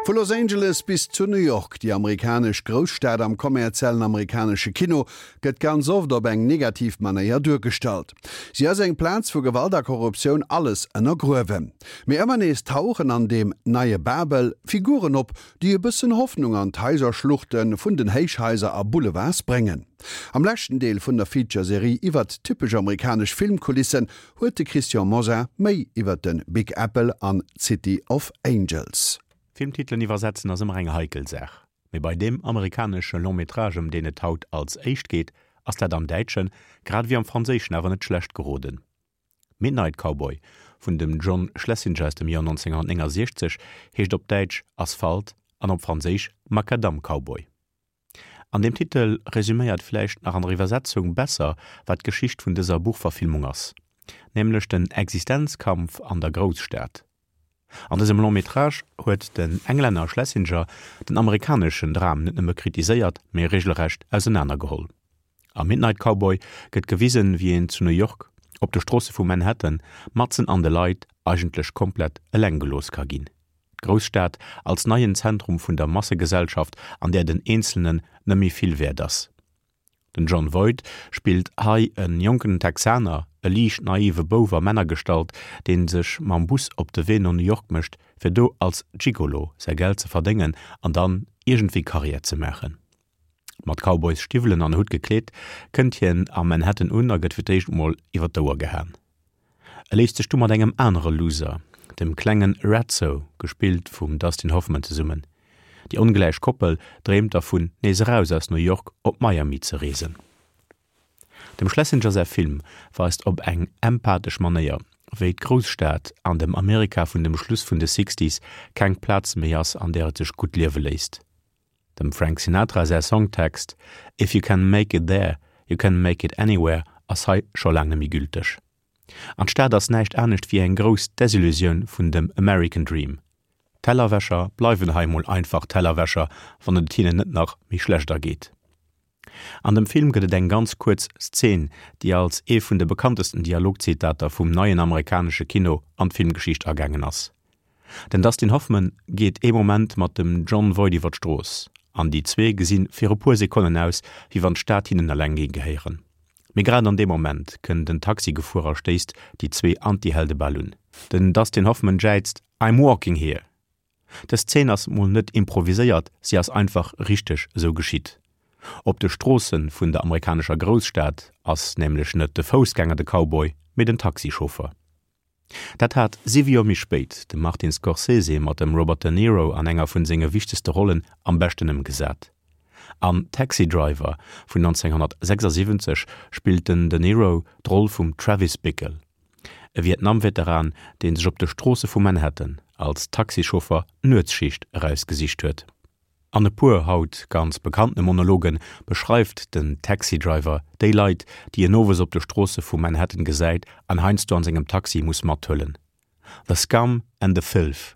Vu Los Angeles bis zu New York, déi amerikanesch Grousstad am kommerziellen amerikanesche Kino gëtt ganz oft op eng negativ Manéier duergestallt. Si ass eng Plaz wou Gewalt a Korruptioun alles ënnergruewen. Mee ëmmer nees tauchen an deem neie Babel Figuren op, déi e bëssen Hoffnung an d'Haiserschluchte vun den Héichhaiser a Boulevards bréngen. Am leschten Deel vun der Feature-Serie iwwert typesch amerikanesch Filmkulissen huet de Christian Mosar méi iwwer de Big Apple an d'City of Angels. Filmtitelen iwwersetzen ass ëmmer eng heikel Saach, mee bei deem amerikanesche Long Métrage ëm deen et haut als éischt geet, ass dat am Däitschen, grad ewéi am Franséischen awer net schlecht geroden. Midnight Cowboy vun dem John Schlesinger aus dem Joer 1969 heescht op Däitsch Asphalt an op Franséisch Macadam Cowboy. An deem Titel resüméiert vläicht nach an der Iwwersetzung besser, wat d'Geschicht vun dëser Buchverfilmung ass, nämlech den Existenzkampf an der Grousstad. An dësem Long métrage huet den Englänner Schlesinger den amerikaneschen Dram net nëmme kritiséiert, mee regelrecht ausenanergeholl. Am Midnight Cowboy gëtt gewisen, wéi een zu New York, op de Stroosse vu Manhattan, matzen an de Leit, eigentlech komplett eleng gelooss ka ginn. D'Grousstad als neien Zentrum vun der Massegesellschaft, an där den Eenzelnen net méi vill wäert ass. Den Jon Voight spillt hei e jonken Texaner, e liicht naive Bouf a Männergestalt, dee sech mam Bus op de Wee no New York mécht, fir do als Gigolo säi Geld ze verdéngen an dann iergendwéi Karriär ze maachen. Mat Cowboysstiwwelen an Hutt gekleet, kënnt hien a Manhattan un a gëtt fir d'éischt mol iwwer d'Ouer gehaen. E léisst sech du mat engem anere Loser, dem klenge Ratso, gespillt vum Dustin Hoffman, zesummen. Déi ongläich Koppel dreemt dervun, nees eraus aus New York op Miami ze reesen. Dem Schlesinger säi Film weist op eng empathesch Manéier, wéi d'Grousstad an dem Amerika vun dem Schluss vun de Sixties keng Plaz méi ass, an där et sech gutt liewe léisst. Dem Frank Sinatra säi Songtext If you can make it there, you can make it anywhere ass hei scho laang net méi gülteg. An d'Stad ass näischt anescht wéi eng grouss Desillusioun vun dem American Dream. Tellerwäscher bleiwen hei mol einfach Tellerwäscher, wann et hinnen net nach méi schlecht ergeet. An dem Film gëtt et eng ganz kuerz Szen, déi als ee vun de bekanntesten Dialogzitater vum neien amerikanesche Kino an d'Filmgeschicht agaangen ass. Den Dustin Hoffman geet ee Moment mat dem Jon Voight iwwer d'Strooss, an déi zwee gesi fir e puer Sekonnen aus, wéi wann d'Stad hinnen eleng géing gehéieren. Mee grad an deem Moment kënnt en Taxi gefuer a stéisst déi zwee Antihelde bal un. Den Dustin Hoffman jäizt, I'm walking here! Dës Zeen ass mol net improviséiert, si ass einfach richteg esou geschitt. Op de Stroosse vun der amerikanescher Grousstad ass nämlech net de Foussgänger de Cowboy, mee den Taxichauffer. Dat hat siwe Joer méi spéit de Martin Scorsese mat dem Robert De Niro an enger vun senge wichtegste Rollen am beschten ëmgesat. An Taxi Driver vun 1976 spillt den De Niro d'Roll vum Travis Bickle, e Vietnam-Veteran, dee sech op de Stroosse vu Manhattan als Taxichauffer d'Nuetsschicht erausgesicht huet. An e puer haut ganz bekanntene Monologe beschreift den Taxi Driver déi Leit, déi en owes op de Stroosse vu Manhattan gesäit an heiansdo an sengem Taxi muss mathuelen. The scum and the filth,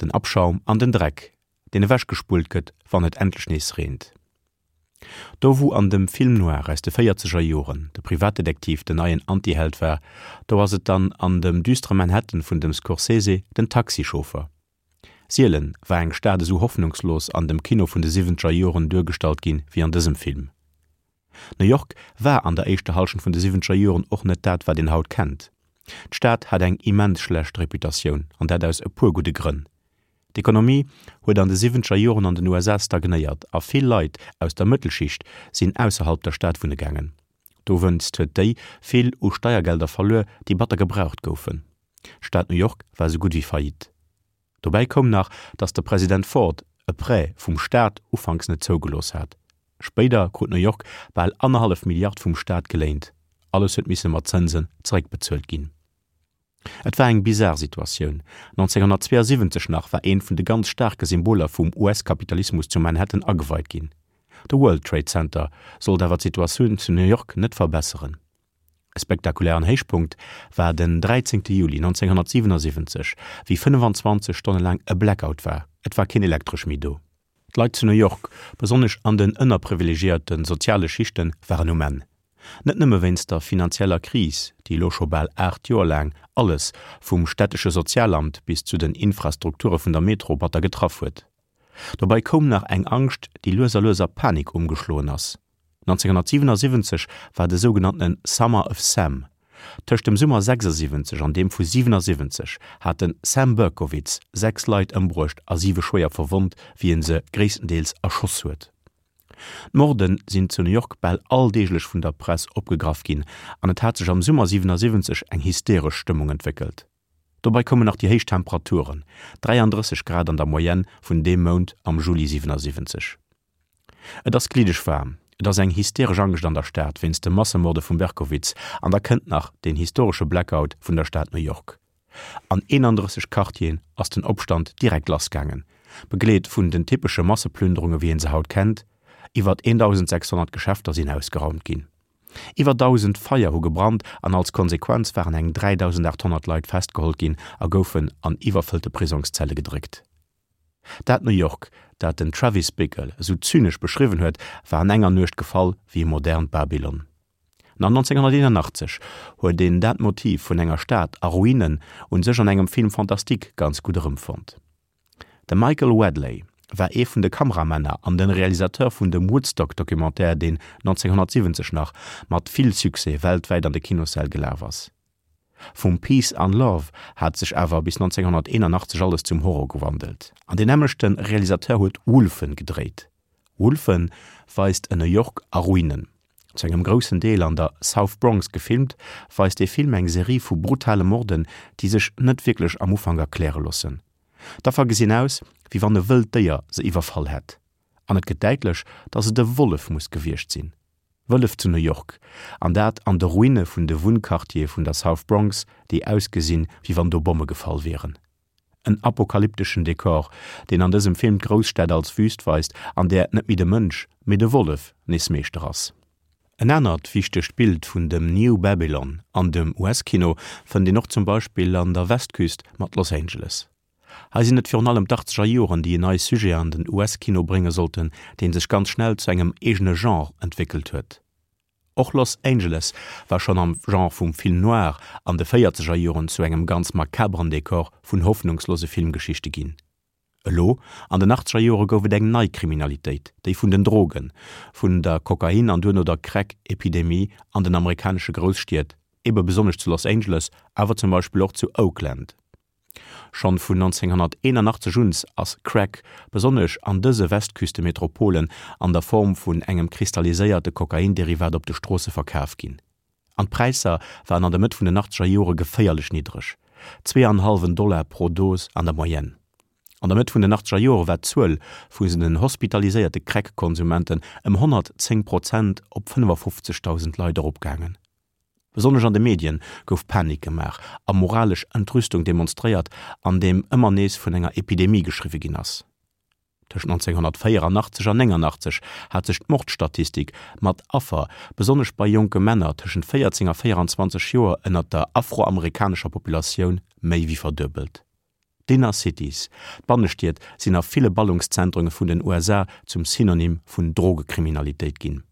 den Abschaum an den Dreck, deen ewechgespullt gëtt, wann et endlech nees reent. Do wou an dem Film noir aus de véierzeger Joren de Privatdetektiv den neien Antiheld war, do ass et dann an dem düstere Manhattan vun dem Scorsese den Taxichauffer. Sielen war eng Stad esou hoffnungslos an dem Kino vun de siwwenzeger Joren duergestallt ginn wéi an dësem Film. New York war an der éischter Hallschent vun de siwwenzeger Joren och net dat wat een haut kennt. D'Stad hat eng immens schlecht Reputatioun an dat aus e puer gudde Grënn. D'Ekonomie huet an de siwwenzeger Joren an den USA stagnéiert a vill Leit aus der Mëttelschicht sinn ausserhalb der Stad wunne gaangen. Dowéinst huet déi vill u Steiergelder verluer, déi batter gebraucht goufen. D'Stad New York war esou gutt wéi faillite. Dobäi koum nach, datt de President Ford e Prêt vum Staat ufanks net zougelooss hat. Spéider krut New York bal annerhallef Milliard vum Staat geléint. Alles huet misse mat Zënsen zeréckbezuelt ginn. Et war eng bizar Situatioun. 1972 nach war eent vun de ganz staarke Symboler vum US-Kapitalismus zu Manhattan ageweit ginn. De World Trade Center sollt awer d'Situatioun zu New York net verbesseren. E spektakulären Héichpunkt war den 13 Juli 1977, wéi 25 Stonne laang e Blackout war, et war keen Elektresch méi do. D'Leit zu New York, besonnesch an den ënnerprivilegiéierte soziale Schichten, waren um Enn. Net nëmme wéinst der finanzieller Kris, déi elo scho bal 8 Joer laang alles, vum stättesche Sozialamt bis zu den Infrastrukture vun der Metro, batter getraff huet. Dobei koum nach eng Angscht, déi lues a lues a Panik ëmgeschloen ass. 1977 war de sougenanntene Summer of Sam. Tëscht dem Summer 76 an deem vu 77 hat de Sam Berkowitz 6 Leit ëmbruecht a siwe schwéier verwonnt, wéi en se gréisstendeels erschoss huet. D'Morde sinn zu New York bal alldeeglech vun der Press opgegraff ginn an et hat sech am Summer 77 eng hysteresch Stëmmung entwéckelt. Dobei koumen nach déi héich Temperaturen, 33 Grad an der Moyenne vun deem Mount am Juli 77. Et ass gliddeg waarm, et ass eng hysteresch Angscht an der Stad wéinst de Massemorde vum Berkowitz an da kënnt nach deen historesche Blackout vun der Stad New York. An 31 Quartieren ass den Opstand direkt lassgaangen, begleet vun den typesche Masseplünderunge wéi een se haut kennt. Iwwert 1.600 Geschäfter sinn ausgeraumt ginn. Iwwer 1.000 Feier hu gebrannt an als Konsequenz waren eng 3.800 Leit festgeholl ginn a goufen an iwwerfëllte Prisongszelle gedréckt. Dat New York, dat den Travis Bickle esou zynesch beschriwwen huet, war an enger Nuecht gefall wéi e modernt Babylon. Nach 1981 huet een dat Motiv vun enger Stad a Ruinen un sech an engem Film fantastique ganz gutt erëmfonnt. De Michael Wadleigh war ee vun de Kameramänner an den Realisateur vun dem Woodstock-Documentaire, deen 1970 nach mat vill Succès weltwäit an de Kinossäll gelaf ass. Vum Peace an Love hat sech awer bis 1981 alles zum Horror gewandelt an deen nämmlechte Realisateur huet Wolfen gedréit. Wolfen weist en New York a Ruinen. Zu engem groussen Deel an der South Bronx gefilmt, weist dee Film eng Serie vu brutale Morden, déi sech net wierklech am Ufank erkläre loossen. D'Affer gesinn aus, wéi wann e wëllt Déier se iwwerfall hätt, an et gëtt däitlech, datt et e Wollef muss gewiescht sinn. Wëllef zu New York, an dat an de Ruine vun de Wunnquartiere vun der South Bronx, déi ausgesinn, wéi wann do Bomme gefall wieren. En apokalypteschen Dekor, deen an dësem Film d'Grousstad als Wüst weist, an där net méi de Mënsch, mee de Wollef nees Meeschter ass. En anert wichtegt Bild vun dem New Babylon an dem US-Kino fënnt een och zum Beispill an der Westküst mat Los Angeles. Hei sinn et virun allem d'Achtzeger Joren, déi en neie Sujet an den US-Kino brénge sollten, dee sech ganz schnell zu engem eegene Genre entwéckelt huet. Och Los Angeles war schonn am Genre vum Film noir an de véierzeger Joren zu engem ganz makaberen Dekor vun hoffnungslose Filmgeschichte ginn. Elo an den achtzeger Jore gouf et eng nei Kriminalitéit, déi vun den Drogen, vun der Kokain an duerno der Crack-Epidemie an den amerikanesche Grousstied, ebe besonnesch zu Los Angeles, awer zum Beispill och zu Oakland. Schonn vun 1981 un ass Crack, besonnesch an dëse Westküstemetropolen, an der Form vun engem kristalliséierte Kokainderivat op de Stroosse verkaf ginn. An d'Präisser waren an der Mëtt vun den achtzeger Jore geféierlech niddreg, zweeanhallwen Dollar pro Dos an der Moyenne. An der Mëtt vun den achtzeger Jore war d'Zuel vu den hospitaliséierte Crack-Konsumenten ëm 110 Prozent op 55.000 Leit eropgaangen. Besonnesch an de Medien gouf Panik gemaach a moralesch Entrüstung demonstréiert, andeem ëmmer nees vun enger Epidemie geschriwwe ginn ass. Tëscht 1984 an 89 hat sech d'Mordstatistik mat Affer, besonnesch bei jonke Männer tëschent 14 a 24 Joer ënnert der afroamerikanescher Populatioun, méi wéi verduebelt. D'Inner Cities, d'Bannestied, sinn a ville Ballungszentren vun den USA zum Synonym vun Drogekriminalitéit ginn.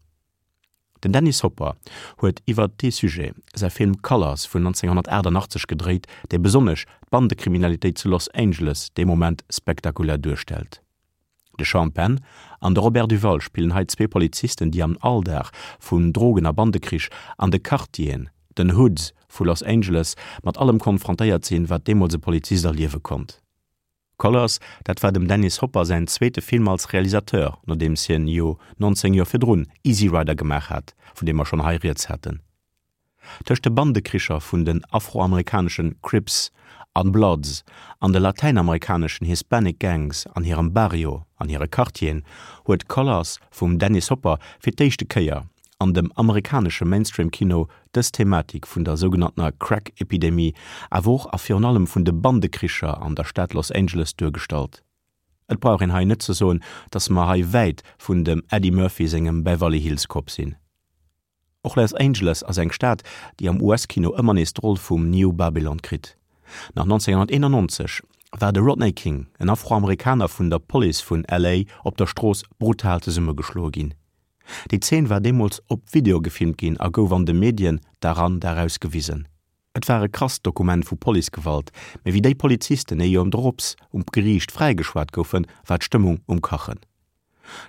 Den Dennis Hopper huet iwwer dee Sujet säi Film Colors vun 1988 gedréit, dee besonnesch d'Bandekriminalitéit zu Los Angeles dee Moment spektakulär duerstellt. De Sean Penn an de Robert Duvall spillen hei zwee Polizisten, déi am Alldag vun Drogen a Bandekrich an de Quartieren, den Hoods vu Los Angeles, mat allem konfrontéiert sinn, wat deemools e Polizist erliewe konnt. Colors, dat war dem Dennis Hopper säin zweete Film als Realisateur, nodeems hien jo 19 Joer virdrun Easy Rider gemaach hat, vun deem mer schonn hei rieds haten. Tëscht de Bandekricher vun den afroamerikanesche Crips an Bloods an de latäinamerikaneschen Hispanic Gangs an hirem Barrio, an hire Quartieren, huet Colors vum Dennis Hopper fir d'éischte Kéier an dem amerikanesche Mainstream-Kino dës Thematik vun der sougenanntener Crack-Epidemie, awer och a virun allem vun de Bandekricher an der Stad Los Angeles duergestallt. Et brauch een hei net ze soen, dass mer hei wäit vun dem Eddie Murphy sengem Beverly Hills Cop sinn. Och Los Angeles ass eng Stad, déi am US-Kino ëmmer nees d'Roll vum New Babylon kritt. Nach 1991 war de Rodney King, en Afroamerikaner vun der Police vun LA, op der Strooss brutal zesummegeschloe ginn. Déi Zeen war deemools op Video gefilmt ginn a gouf an de Medien Dag an Dag aus gewisen. Et war e krasst Dokument vu Policegewalt, mee wéi déi Polizisten ee Joer drops um Geriicht fräigeschwat goufen, war d'Stëmmung um Kachen.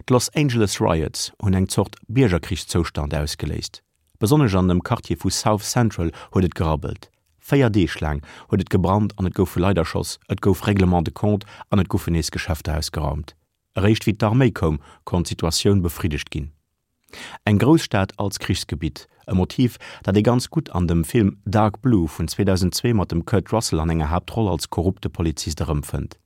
D'Los Angeles Riots hunn eng Zort Biergerkrichszoustand ausgeléist. Besonnesch an dem Quartier vu South Central huet et gerabbelt. 4 Deeg laang huet et gebrannt an et goufe Leit erschoss, et gouf Règlement de compte an et goufen nees Geschäfter ausgeraumt. Eréischt wéi d'Arméi koum, konnt d'Situatioun befriddegt ginn. Eng Grousstad als Krichsgebitt, e Motiv, dat ee ganz gutt an dem Film Dark Blue vun 2002 mat dem Kurt Russell an enger Haaptroll als korrupte Polizist erëmfënnt.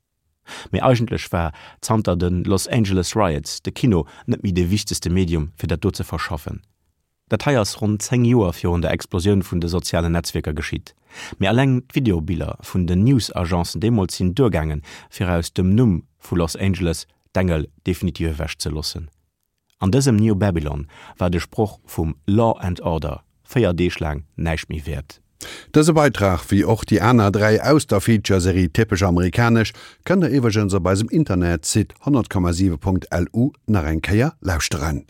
Mee eigentlech war zanter de Los Angeles Riots de Kino net méi de wichtegste Medium fir dat do ze verschaffen. Dat hei ass ronn 10 Joer virun der Explosioun vun de sozialen Netzwierker geschitt. Mee alleng d'Videobiller vun den News-Agencen deemools sinn duergaangen, fir aus dem Numm vu Los Angeles d'Engel definitiv ewech ze loossen. An dësem New Babylon war de Sproch vum Law and Order 4 Deeg laang näischt méi wäert. Dëse Beitrag, wéi och déi aner 3 aus der Feature-Serie Typesch amerikanesch, kënnt der iwwregens op eisem Internetsite 100,7.lu nach eng Kéier lauschteren.